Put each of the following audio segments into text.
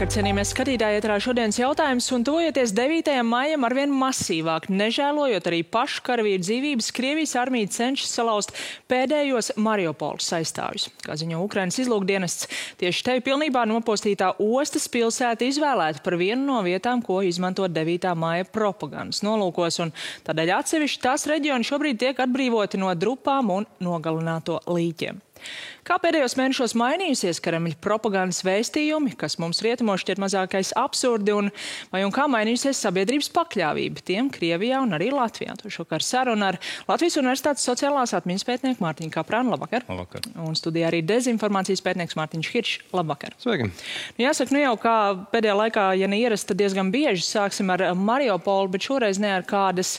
Labvakar, cienījamies skatītāji, ēterā šodienas jautājums, un tuvojoties 9. maijam arvien masīvāk, nežēlojot arī pašu karavīru dzīvības, Krievijas armija cenšas salauzt pēdējos Mariupoles aizstāvjus. Kā ziņo Ukrainas izlūkdienests, tieši te pilnībā nopostītā ostas pilsēta izvēlēta par vienu no vietām, ko izmantot 9. maija propagandas nolūkos, un tādēļ atsevišķi tās reģioni šobrīd tiek atbrīvoti no drupām un nogalināto līķiem. Kā pēdējos mēnešos mainījusies Kremļa propagandas vēstījumi, kas mums rietumos šķiet mazākais absurdi, un kā mainījusies sabiedrības pakļāvība tiem Krievijā un arī Latvijā? To šokar saruna ar Latvijas Universitātes sociālās atmiņas pētnieku Mārtiņu Kaprānu. Labvakar. Labvakar. Un studijā arī dezinformācijas pētnieks Mārtiņš Hiršs. Labvakar. Sveiki. Jāsaka, jau kā pēdējā laikā, ja neierast, tad diezgan bieži sāksim ar Mariupolu, bet šoreiz ne ar kādas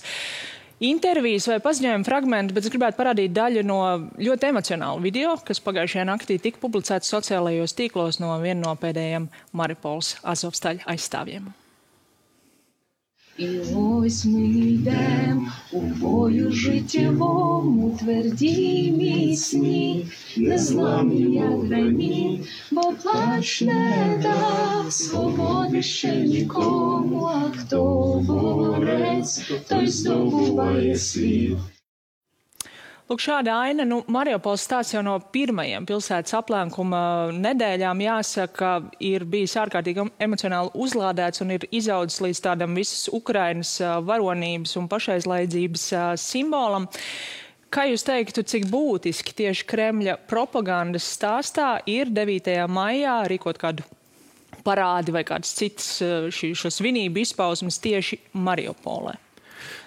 intervijas vai paziņojuma fragmenti, bet es gribētu parādīt daļu no ļoti emocionālu video, kas pagājušajā naktī tika publicēts sociālajos tīklos no viena no pēdējiem Mariupoles Azovstaļa aizstāvjiem. І ось ми йдем у бою життєвому, тверді міцні, незламні, як граніт, бо плач не дав свободи ще нікому, а хто борець, той здобуває світ. Lūk, šāda aina, Mariupoles stāsts jau no pirmajiem pilsētas aplenkuma nedēļām, jāsaka, ir bijis ārkārtīgi emocionāli uzlādēts un ir izaudzis līdz tādam visas Ukrainas varonības un pašaizlaidzības simbolam. Kā jūs teiktu, cik būtiski tieši Kremļa propagandas stāstā ir 9. maijā rīkot kādu parādi vai kādas citas šo svinību izpausmes tieši Mariupolē?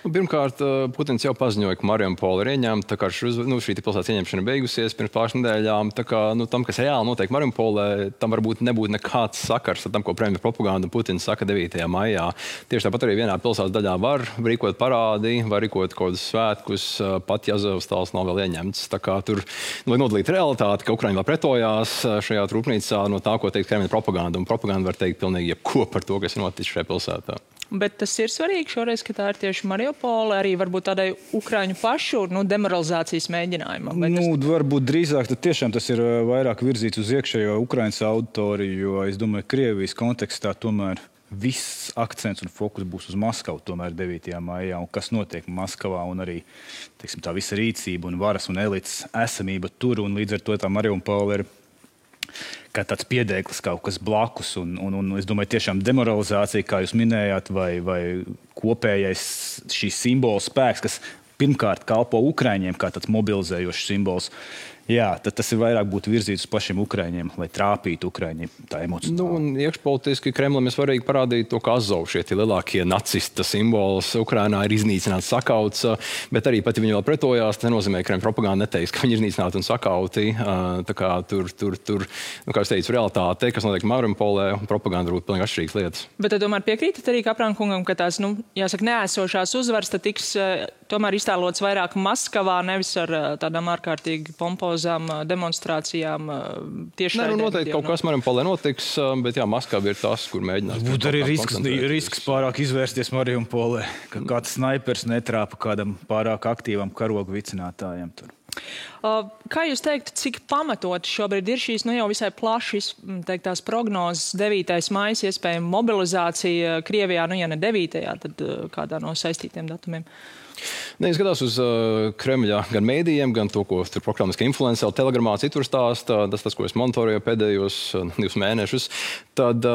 Pirmkārt, Putins jau paziņoja, ka Mariupole ir ieņemta, tā kā šī pilsētas ieņemšana beigusies pirms pāris nedēļām. Tā kā tam, kas reāli notiek Mariupolē, tam varbūt nebūtu nekāds sakars ar tam, ko Kremļa propaganda Putins saka 9. maijā. Tieši tāpat arī vienā pilsētas daļā var rīkot parādi, var rīkot kaut kādus svētkus, pat ja Azovstals nav vēl ieņemts. Tā kā tur vajag nodalīt realitāti, ka Ukraiņa vēl pretojās šajā rūpnīcā no tā, ko teikt Kremļa propaganda. Un propaganda var teikt pilnīgi jebko par to, kas ir noticis šajā pilsētā. Bet tas ir svarīgi šoreiz, ka tā ir tieši Mariupole, arī varbūt tādai Ukraiņu pašu demoralizācijas mēģinājumam. Varbūt drīzāk tiešām tas ir vairāk virzīts uz iekšējo Ukraiņas auditoriju, jo es domāju, Krievijas kontekstā tomēr viss akcents un fokus būs uz Maskavu tomēr 9. maijā, un kas notiek Maskavā, un arī, teiksim, tā visa rīcība un varas un elites esamība tur, un līdz ar to tā Mariupole ir kā tāds piedēklis kaut kas blakus, un es domāju, tiešām demoralizācija, kā jūs minējāt, vai kopējais šīs simbola spēks, kas pirmkārt kalpo Ukraiņiem kā tāds mobilizējošs simbols. Jā, tad tas ir vairāk būtu virzīts uz pašiem Ukraiņiem, lai trāpītu Ukraiņiem tā emocionāli. Un iekšpolitiski Kremlim ir svarīgi parādīt to, ka Azov šie lielākie nacista simbols Ukrainā ir iznīcināts, sakauts, bet arī pat, ja viņi vēl pretojās, tas nenozīmē, ka Kremļa propaganda neteiks, ka viņi ir iznīcināti un sakauti. Tā kā tur, kā es teicu, realitāte, kas notiek Mariupolē, propaganda būtu pilnīgi atšķirīgas lietas. Bet tad tomēr piekrītat arī Kaprāna kungam, ka tās, jāsaka, neesošās uzvaras tad tiks tomēr iztēlots vairāk Maskavā, nevis ar tādām ārkārtīgi pompozām demonstrācijām tieši tādā. Noteikti kaut kas Mariupolē notiks, bet jā, Maskava ir tas, kur mēģinās. Būtu arī risks pārāk izvērsties Mariupolē, ka kāds snaipers netrāpa kādam pārāk aktīvam karogu vicinātājiem tur. Kā jūs teiktu, cik pamatot šobrīd ir šīs jau visai plaši teiktās prognozes 9. maijas iespējama mobilizācija Krievijā, ja ne 9. tad kādā no saistītiem datumiem? Es skatās uz Kremļa gan mēdījiem, gan to, ko tur prokremliskā influenceri telegramā citur stāsta, tas, ko es monitoru pēdējos 2 mēnešus, tad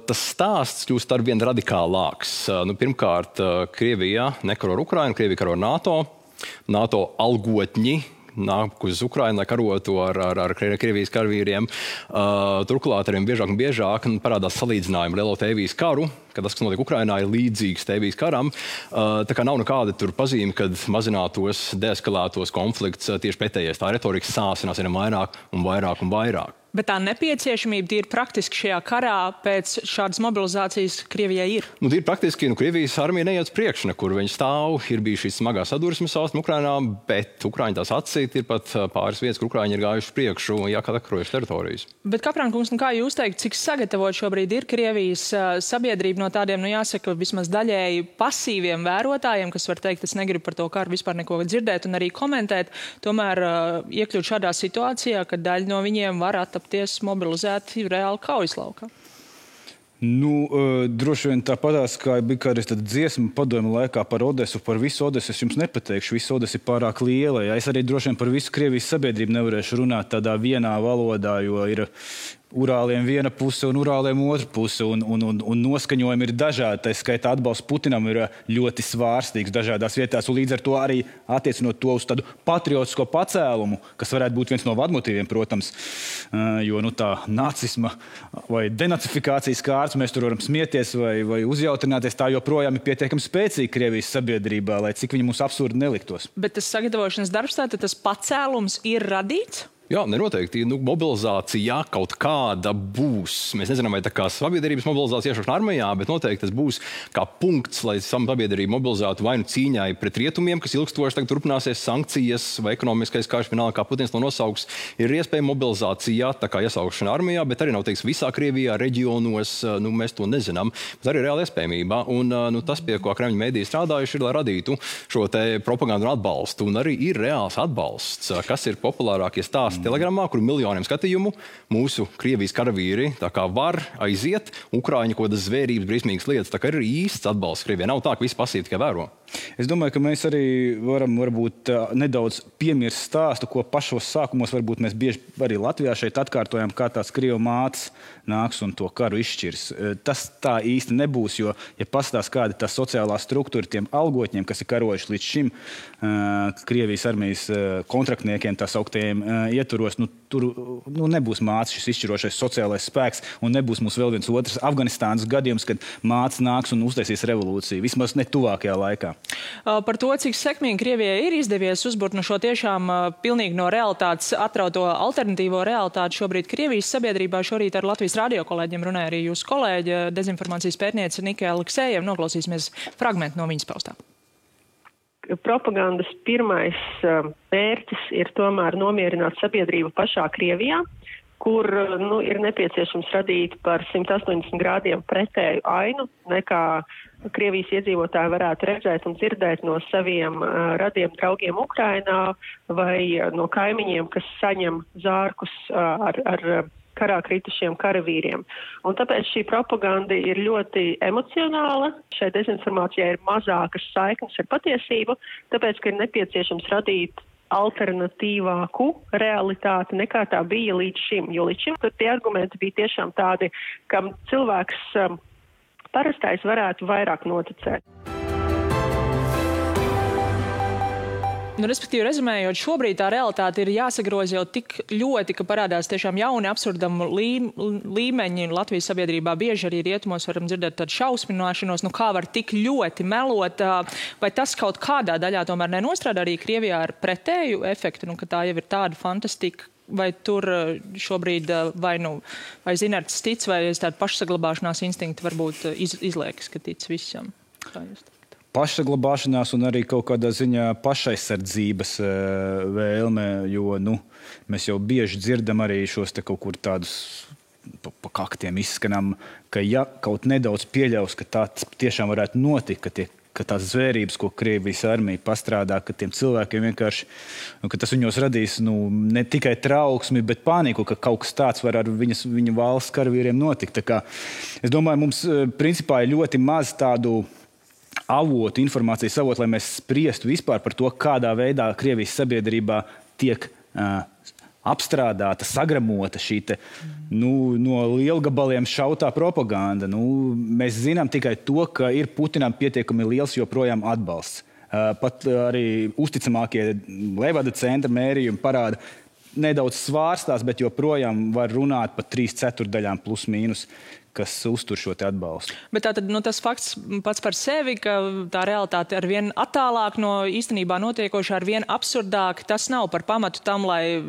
tas stāsts kļūst arvien radikālāks. Pirmkārt, Krievija nekaro ar Ukrainu, Krievija karo ar NATO algotņi nāk uz Ukrainu, lai karotu ar Krievijas karavīriem. Turklāt arvien biežāk un biežāk parādās salīdzinājumi lielo Tēvijas karu, ka tas, kas notiek Ukrainā, ir līdzīgs Tēvijas karam. Tā kā nav nekāda tur pazīme, kad mazinātos, deeskalētos konflikts, tieši pretējais. Tā retorika sāsinās ar vairāk un vairāk un vairāk. Bet tā nepieciešamība tīri praktiski šajā karā pēc šādas mobilizācijas Krievijai ir? Tīri praktiski, Krievijas armija neiet uz priekšu, nekur viņi stāv, ir bijušas šīs smagās sadursmes austrumu Ukrainā, bet Ukraiņi tās atsīt, ir pat pāris vietas, kur Ukraiņi ir gājuši priekšu, jākarojuši teritorijas. Bet, Kaprāna kungs, kā jūs teikt, cik sagatavot šobrīd ir Krievijas sabiedrība no tādiem, jāsaka, vismaz daļēji pasīviem vērotājiem, kas var teikt, es negribu par to karu vispār neko dzirdēt un arī komentēt, tomēr iekļūt šādā situācijā, ka daļa no viņiem var attapties mobilizēti reāli kaujas laukā? Droši vien tāpatās, kā bija kādreiz tāda dziesma padomju laikā par Odesu, par visu Odesu es jums nepateikšu, visu Odesa ir pārāk liela. Ja? Es arī droši vien par visu Krievijas sabiedrību nevarēšu runāt tādā vienā valodā, jo ir Urāliem viena puse un Urāliem otra puse, un noskaņojumi ir dažādi. Tā skaitā atbalsts Putinam ir ļoti svārstīgs dažādās vietās, un līdz ar to arī attiecinot to uz tādu patriotisko pacēlumu, kas varētu būt viens no vadmotīviem, protams, jo tā nacisma vai denacifikācijas kārts mēs tur varam smieties vai uzjautrināties, tā joprojām ir pietiekami spēcīga Krievijas sabiedrībā, lai cik viņi mums absurdi neliktos. Bet tas sagatavošanas darbs, tātad tas pacēlums ir radīts? Jā, nenoteikti. Mobilizācija kaut kāda būs. Mēs nezinām, vai tā kā sabiedrības mobilizācija iešaušana armijā, bet noteikti tas būs kā punkts, lai sabiedrība mobilizētu vai nu cīņai pret rietumiem, kas ilgstoši tagad turpināsies, sankcijas vai ekonomiskais karš, vienalga, kā Putins to nosauks. Ir iespēja mobilizācija, tā kā iesaukšana armijā, bet arī nav teiks visā Krievijā, reģionos, mēs to nezinām. Bet arī reāla iespējamība. Un tas, pie ko Kremļa mēdīji strādājuši, ir, lai radītu šo te propagandu un atbalstu. Un arī ir reāls atbalsts, kas ir populārākie stāsti Telegramā, kur miljoniem skatījumu mūsu Krievijas karavīri tā kā var aiziet, Ukraiņu kaut kādas zvērības, briesmīgas lietas, tā kā ir īsts atbalsts Krievijai. Nav tā, ka visi pasīvi tikai vēro. Es domāju, ka mēs arī varam varbūt nedaudz piemirst stāstu, ko pašos sākumos varbūt mēs bieži arī Latvijā šeit atkārtojam, kā tās Krievu mātes nāks un to karu izšķirs. Tas tā īsti nebūs, jo, ja pastāst kāda tā sociālā struktūra tiem algotņiem, kas ir karojuši līdz šim Krievijas armijas kontraktniekiem, tā sauktiem ietvaros, tur nebūs mātes šis izšķirošais sociālais spēks un nebūs mums vēl viens otrs Afganistānas gadījums, kad mātes nāks un uztaisīs revolūciju. Vismaz ne tuvākajā laikā. Par to, cik sekmīgi Krievijai ir izdevies uzburt šo tiešām pilnīgi no realitātes atrauto alternatīvo realitāti šobrīd Krievijas sabiedrībā. Šorīt ar Latvijas radio kolēģiem runāja arī jūsu kolēģe, dezinformācijas pētniece Nika Aleksejeva. Noklausīsimies fragmentu no viņas paustā. Propagandas pirmais mērķis ir tomēr nomierināt sabiedrību pašā Krievijā, kur ir nepieciešams radīt par 180 grādiem pretēju ainu, nekā Krievijas iedzīvotāji varētu redzēt un dzirdēt no saviem radiem draugiem Ukrainā vai no kaimiņiem, kas saņem zārkus ar karā kritušiem karavīriem. Un tāpēc šī propaganda ir ļoti emocionāla. Šai dezinformācijai ir mazākas saiknes ar patiesību, tāpēc, ka ir nepieciešams radīt alternatīvāku realitāti nekā tā bija līdz šim. Jo līdz šim tie argumenti bija tiešām tādi, kam cilvēks parastais varētu vairāk noticēt. Respektīvi, rezumējot, šobrīd tā realitāte ir jāsagroza jau tik ļoti, ka parādās tiešām jauni absurdamu līmeņi Latvijas sabiedrībā. Bieži arī rietumos varam dzirdēt tādu šausmināšanos, kā var tik ļoti melot. Vai tas kaut kādā daļā tomēr nenostrādā arī Krievijā ar pretēju efektu, ka tā jau ir tāda fantastika? Vai tur šobrīd vai Zinerts tic, vai tāda pašsaglabāšanās instinkti varbūt izliekas, ka tic visam? Kā jūs pašsaglabāšanās un arī kaut kādā ziņā pašaizsardzības vēlme, jo mēs jau bieži dzirdam arī šos te kaut kur tādus pa kaktiem izskanam, ka ja kaut nedaudz pieļaus, ka tā tiešām varētu notikt, ka tās zvērības, ko Krievijas armija pastrādā, ka tiem cilvēkiem vienkārši, ka tas viņos radīs ne tikai trauksmi, bet paniku, ka kaut kas tāds var ar viņa valsts karavīriem notikt. Tā kā, es domāju, mums principā ir ļoti maz tādu avotu, informācijas avotu, lai mēs spriestu vispār par to, kādā veidā Krievijas sabiedrībā tiek apstrādāta, sagramota šī no lielgabaliem šautā propaganda. Mēs zinām tikai to, ka ir Putinam pietiekami liels joprojām atbalsts. Pat arī uzticamākie Levada centra mērījumi parāda, nedaudz svārstās, bet joprojām var runāt par 3/4 plus mīnus, kas uztur šo te atbalstu. Bet tātad tas fakts pats par sevi, ka tā realitāte ar vien attālāk no īstenībā notiekošā, ar vien absurdāk, tas nav par pamatu tam, lai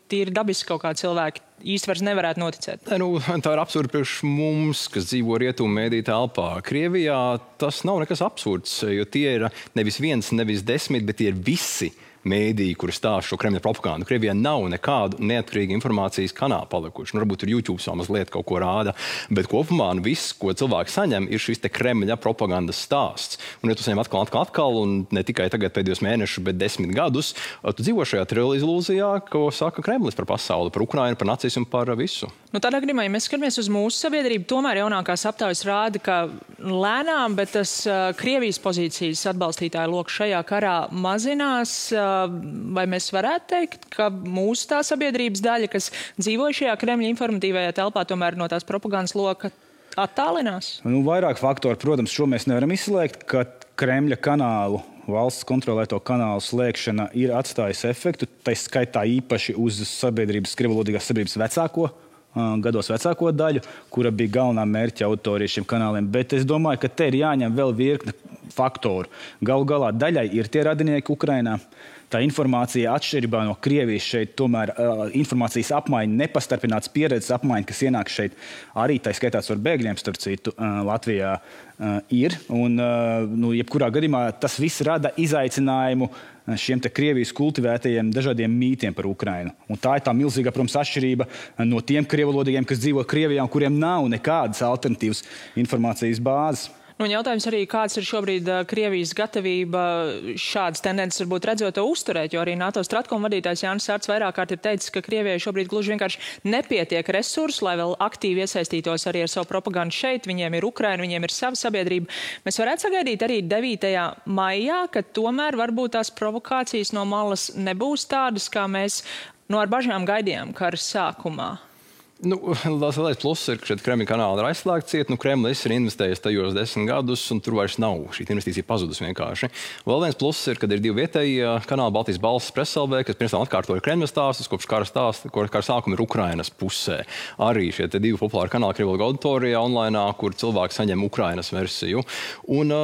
tīri dabiski kaut kā cilvēki īsti vairs nevarētu noticēt. Tā ir absurda priekš mums, kas dzīvo rietumu mēdī telpā. Krievijā tas nav nekas absurds, jo tie ir nevis viens, nevis 10, bet tie ir visi mēdīji, kuri stāsta šo Kremļa propagandu. Krievijā nav nekādu neatkarīgu informācijas kanālu palikuši. Varbūt tur YouTube vēl mazliet kaut ko rāda, bet kopumā viss, ko cilvēki saņem, ir šis te Kremļa propagandas stāsts. Un ja tu saņem atkal, un ne tikai tagad pēdējos mēnešus, bet 10 gadus, tu dzīvo šajā ilūzijā, ko saka Kremlis par pasauli, par Ukrainu, par nacismu, par visu. Tādā gadījumā, ja mēs skatāmies uz mūsu sabiedrību, tomēr jaunākās aptaujas rāda, ka lēnām, bet tas Krievijas pozīcijas atbalstītāju loks šajā karā mazinās. Vai mēs varētu teikt, ka mūsu tā sabiedrības daļa, kas dzīvo šajā Kremļa informatīvajā telpā, tomēr no tās propagandas loka attālinās? Vairāk faktori, protams, šo mēs nevaram izslēgt, ka Kremļa kanālu, valsts kontrolēto kanālu slēgšana ir atstājusi efektu, tā skaitā īpaši uz krievvalodīgās sabiedrības gados vecāko daļu, kura bija galvenā mērķa auditorija šiem kanāliem. Bet es domāju, ka te ir jāņem vēl virkne faktoru. Galu galā daļai ir tie radinieki Ukrainā. Tā informācija atšķirībā no Krievijas šeit tomēr informācijas apmaiņa, nepastarpināts pieredzes apmaiņa, kas ienāk šeit arī tā skaitās ar bēgļiem, starp citu, Latvijā ir. Un, jebkurā gadījumā tas viss rada izaicinājumu šiem te Krievijas kultivētajiem dažādiem mītiem par Ukrainu. Un tā ir tā milzīgā, protams, atšķirība no tiem krievalodīgiem, kas dzīvo Krievijā un kuriem nav nekādas alternatīvas informācijas bāzes. Jautājums arī, kāds ir šobrīd Krievijas gatavība šādas tendences varbūt redzot to uzturēt, jo arī NATO Stratkom vadītājs Jānis Sārts vairāk kārt ir teicis, ka Krievijai šobrīd gluži vienkārši nepietiek resursu, lai vēl aktīvi iesaistītos arī ar savu propagandu šeit. Viņiem ir Ukraina, viņiem ir sava sabiedrība. Mēs varētu sagaidīt arī 9. maijā, ka tomēr varbūt tās provokācijas no malas nebūs tādas, kā mēs ar bažām gaidījām kara sākumā. Lielais pluss ir, ka šeit Kremļa kanāli ir aizslēgti. Kremlis ir investējis tajos 10 gadus, un tur vairs nav. Šī investīcija pazudus vienkārši. Vēl viens pluss ir, ka ir 2 vietēji kanāli, Baltijas balss, Preselvē, kas pirms tam atkārtoja Kremļa stāstus, kopš kara sākuma ir Ukrainas pusē. Arī šie 2 populāri kanāli krievvalodīgā auditorijā online, kur cilvēki saņem Ukrainas versiju. Un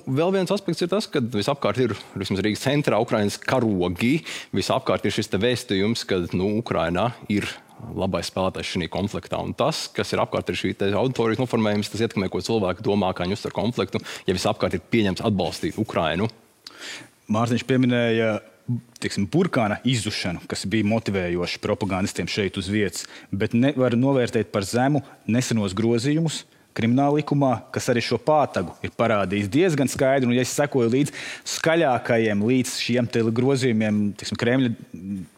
vēl viens aspekts ir tas, ka visapkārt ir Rīgas centrā Ukrainas karogi. Visapkārt ir šis vēstījums, ka Ukrainā ir labais spēlētājs šī konfliktā. Un tas, kas ir apkārt ir šī auditorijas noformējums, tas ietekmē, ko cilvēki domā, kā viņi uztver konfliktu, ja visapkārt ir pieņemts atbalstīt Ukrainu. Mārtiņš pieminēja burkāna izzušanu, kas bija motivējoši propagandistiem šeit uz vietas, bet nevar novērtēt par zemu nesenos grozījumus krimināla likumā, kas arī šo pātagu ir parādījis diezgan skaidri. Un, ja es sekoju līdz skaļākajiem, līdz šiem grozījumiem, Kremļa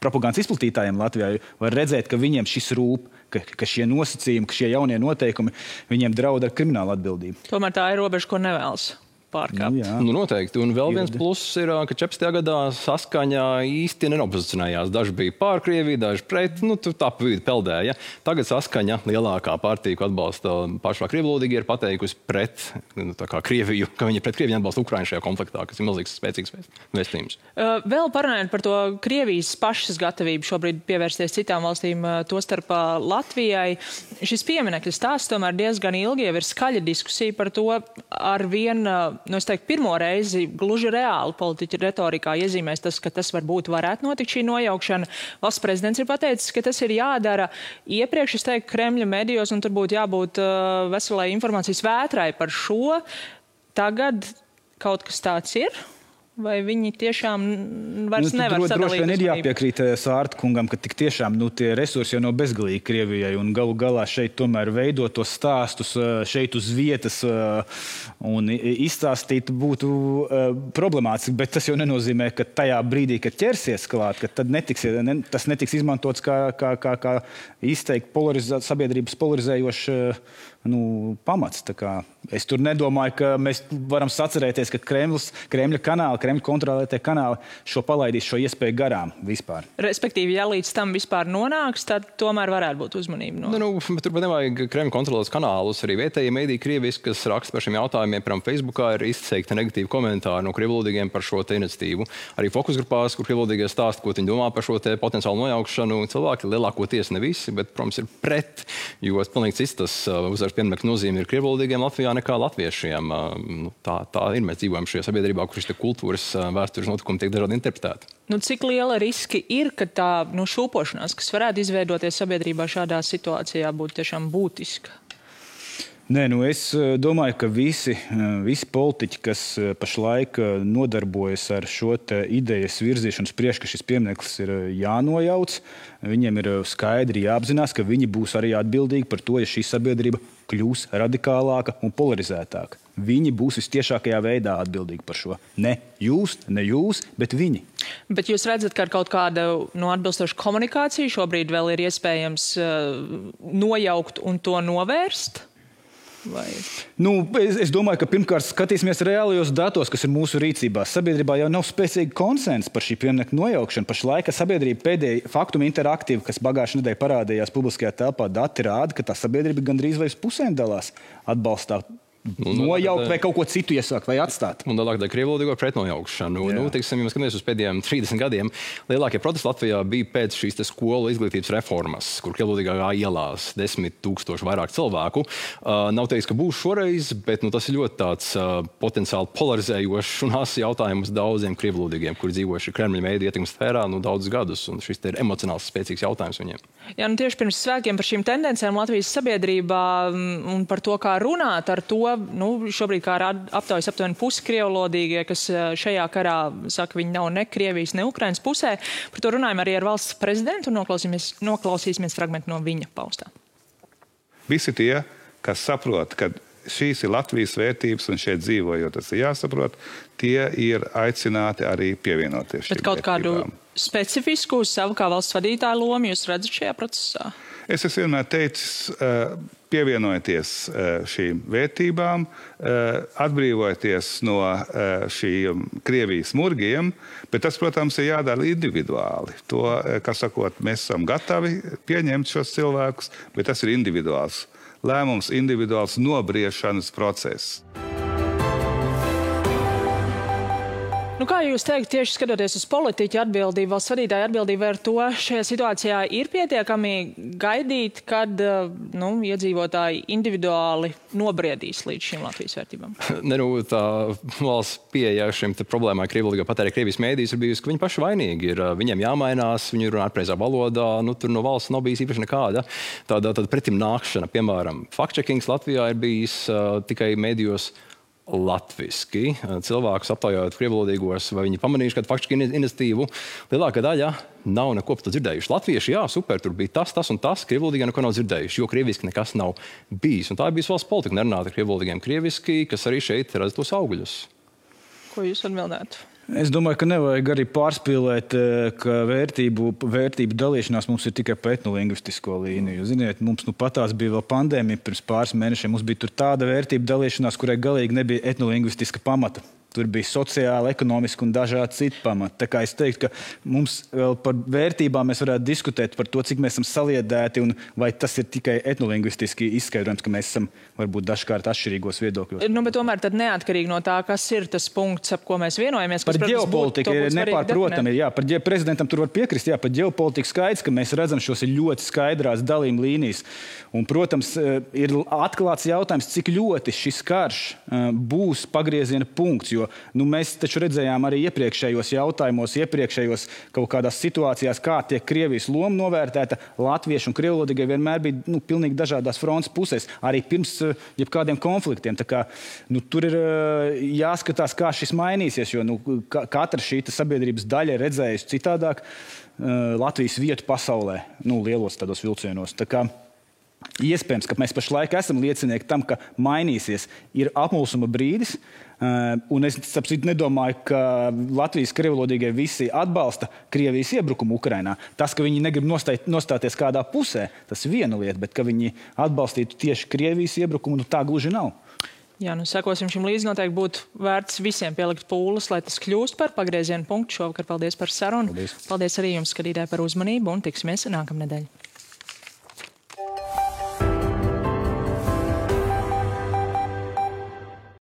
propagandas izplatītājiem Latvijā, var redzēt, ka viņiem šis rūp, ka šie nosacījumi, ka šie jaunie noteikumi, viņiem draud ar kriminālu atbildību. Tomēr tā ir robeža, ko nevēlas pārkāpt. Noteikti. Un vēl viens pluss ir, ka 14. gadā saskaņā īsti nenopozicionējās. Daži bija pār Krieviju, daži pret, tā pa vidu peldēja. Tagad saskaņa lielākā partija, ko atbalsta pašā krievvalodīgi, ir pateikusi pret Krieviju, ka viņi pret Krieviju atbalsta Ukrainu šajā konfliktā, kas ir milzīgs spēcīgs vēstījums. Vēl parunājot par to Krievijas pašas gatavību šobrīd pievērsties citām valstīm, tostarp Latvijai. Šis pieminekļa stāsts tomēr diezgan ilgi jau ir skaļa diskusija par to ar vien pirmo reizi gluži reāli politiķa retorikā iezīmēs tas, ka tas varētu notikt šī nojaukšana. Valsts prezidents ir pateicis, ka tas ir jādara iepriekš, es teiktu, Kremļa medijos, un tur būtu jābūt veselai informācijas vētrai par šo. Tagad kaut kas tāds ir? Vai viņi tiešām vairs nevar sadalīt? Droši vien ir jāpiekrīt Sārta kungam, ka tik tiešām tie resursi jau nav bezgalīgi Krievijai, un galu galā šeit tomēr veidot tos stāstus šeit uz vietas un izstāstīt būtu problemātiski, bet tas jau nenozīmē, ka tajā brīdī, kad ķersies klāt, ka tad tas netiks izmantots kā izteikti sabiedrības polarizējošs pamats. Es tur nedomāju, ka mēs varam sacerēties, ka Kremļa kanāli, Kremļa kontrolētie kanāli šo palaidīs šo iespēju garām vispār. Respektīvi, ja līdz tam vispār nonāks, tad tomēr varētu būt uzmanība. Bet turpat nevajag Kremļa kontrolētas kanālus. Arī vietējie mēdīji Krievijas, kas raksta par šiem jautājumiem, piemēram, Facebookā, ir izteikti negatīvi komentāri no krievvalodīgiem par šo iniciatīvu. Arī fokusgrupās, kur krievvalodīgie stāsta, ko viņi domā par šo potenciālu nojaukšanu, cilvēki lielākoties ne visi, bet, protams, ir pret, jo pilnīgi cits tas uzvaras piemēram nozīme ir krievvalodīgiem Latvijā nekā latviešiem. Tā ir. Mēs dzīvojam šajā sabiedrībā, kur šis kultūras vēstures notikumi tiek dažādi interpretēti. Cik liela riski ir, ka tā šūpošanās, kas varētu izveidoties sabiedrībā šādā situācijā, būtu tiešām būtiska? Nē, es domāju, ka visi politiķi, kas pašlaik nodarbojas ar šo idejas virzīšanu priekš, ka šis piemineklis ir jānojauc, viņiem ir skaidri jāapzinās, ka viņi būs arī atbildīgi par to, ja šī sabiedrība kļūs radikālāka un polarizētāka. Viņi būs vistiešākajā veidā atbildīgi par šo. Ne jūs, bet viņi. Bet jūs redzat, ka ar kaut kāda atbilstoša komunikācija šobrīd vēl ir iespējams nojaukt un to novērst? Vai? Es domāju, ka pirmkārt skatīsimies reālajos datos, kas ir mūsu rīcībā. Sabiedrībā jau nav spēcīga konsensa par šī pieminiekta nojaukšanu. Pašlaik sabiedrība pēdējā Faktuma interaktīva, kas pagājušajā nedēļā parādījās publiskajā telpā, dati rāda, ka tā sabiedrība gandrīz vai uz pusēm dalās atbalstā. Nojaukt vai kaut ko citu iesākt vai atstāt. Un tālāk krievvalodīgo pretnojaukšanu. Teiksim, ja mēs skatāmies uz pēdējiem 30 gadiem, lielākie protesti Latvijā bija pēc šīs skolu izglītības reformas, kur krievvalodīgā ielās 10 000 vairāk cilvēku. Nav teiks, ka būs šoreiz, bet tas ir ļoti tāds potenciāli polarizējošs un asi jautājums daudziem krievvalodīgiem, kuri dzīvojuši Kremļa mēdīju ietekmes sfērā daudzus gadus, un šis ir emocionāls spēcīgs jautājums viņiem. Jā, tieši pirms svētkiem par šīm tendencēm Latvijas sabiedrībā un par to, kā runāt ar to, šobrīd kā aptaujas aptuveni pusi krievvalodīgie, kas šajā karā saka, viņi nav ne Krievijas, ne Ukrainas pusē. Par to runājam arī ar valsts prezidentu un noklausīsimies fragmentu no viņa paustā. Visi tie, kas saprot, ka šīs ir Latvijas vērtības un šeit dzīvojot, tas ir jāsaprot, tie ir aicināti arī pievienoties šīm vērtībām. Bet kaut kādu specifisku savu kā valsts vadītāju lomu jūs redzat šajā procesā? Es esmu vienmēr teicis, pievienojieties šīm vērtībām, atbrīvojieties no šīm Krievijas murgiem, bet tas, protams, ir jādara individuāli. To, kā sakot, mēs esam gatavi pieņemt šos cilvēkus, bet tas ir individuāls lēmums, individuāls nobriešanas process. Kā jūs teikt, tieši skatoties uz politiķu atbildību, valsts vadītāju atbildību, ar to šajā situācijā ir pietiekami gaidīt, kad iedzīvotāji individuāli nobriedīs līdz šīm Latvijas vērtībām? Tā valsts pieeja šim problēmai krievvalodīgā patērē Krievijas mēdījus ir bijusi, ka viņi paši vainīgi ir. Viņiem jāmainās, viņi runā pareizā valodā, tur no valsts nav bijis īpaši nekāda tāda pretim nākšana. Piemēram, fact-checkings Latvijā ir bijis tikai mēdījos latviski. Cilvēkus aptaujājot krievvalodīgos, vai viņi pamanījuši kādu faktiski iniciatīvu. Lielākā daļa nav neko par to dzirdējuši. Latvieši, jā, super, tur bija tas un tas, krievvalodīgā neko nav dzirdējuši, jo krieviski nekas nav bijis. Un tā ir bijusi valsts politika, nerunāt ar krievvalodīgiem krieviski, kas arī šeit redz tos augļus. Ko jūs atbildētu? Es domāju, ka nevajag arī pārspīlēt, ka vērtību dalīšanās mums ir tikai pa etnolingvistisko līniju. Ziniet, mums patās bija vēl pandēmija pirms pāris mēnešiem. Mums bija tur tāda vērtību dalīšanās, kurai galīgi nebija etnolingvistiska pamata. Tur bija sociāli, ekonomiski un dažādi citi pamati. Tā kā es teiktu, ka mums vēl par vērtībām mēs varētu diskutēt par to, cik mēs esam saliedēti un vai tas ir tikai etnolingvistiski izskaidrojums, ka mēs esam varbūt dažkārt atšķirīgos viedokļos. Bet tomēr tad neatkarīgi no tā, kas ir tas punkts, ap ko mēs vienojamies. Par ģeopolitiku ir nepārprotami. Jā, par prezidentam tur var piekrist. Jā, par ģeopolitiku skaidrs, ka mēs redzam šos ļoti skaidrās dalījuma līnijas. Un, protams, ir atklāts jautājums, cik ļoti šis karš būs pagrieziena punkts. Jo mēs taču redzējām arī iepriekšējos jautājumos, iepriekšējos kaut kādās situācijās, kā tiek Krievijas loma novērtēta. Latvieši un krievvalodīgie vienmēr bija pilnīgi dažādās frontes pusēs, arī pirms jebkādiem konfliktiem. Tā kā, tur ir jāskatās, kā šis mainīsies, jo katra šī sabiedrības daļa ir redzējusi citādāk Latvijas vietu pasaulē, lielos tādos vilcienos. Tā kā iespējams, ka mēs pašlaik esam liecinieki tam, ka mainīsies, ir apmulsuma brīdis. Un es nedomāju, ka Latvijas krievvalodīgie visi atbalsta Krievijas iebrukumu Ukrainā. Tas, ka viņi negrib nostāties kādā pusē, tas ir viena lieta, bet ka viņi atbalstītu tieši Krievijas iebrukumu, tā gluži nav. Jā, sekosim šim līdzi, noteikti būtu vērts visiem pielikt pūles, lai tas kļūst par pagriezienu punktu. Šovakar paldies par sarunu. Paldies arī jums, skatītāji, par uzmanību un tiksimies nākamnedēļ.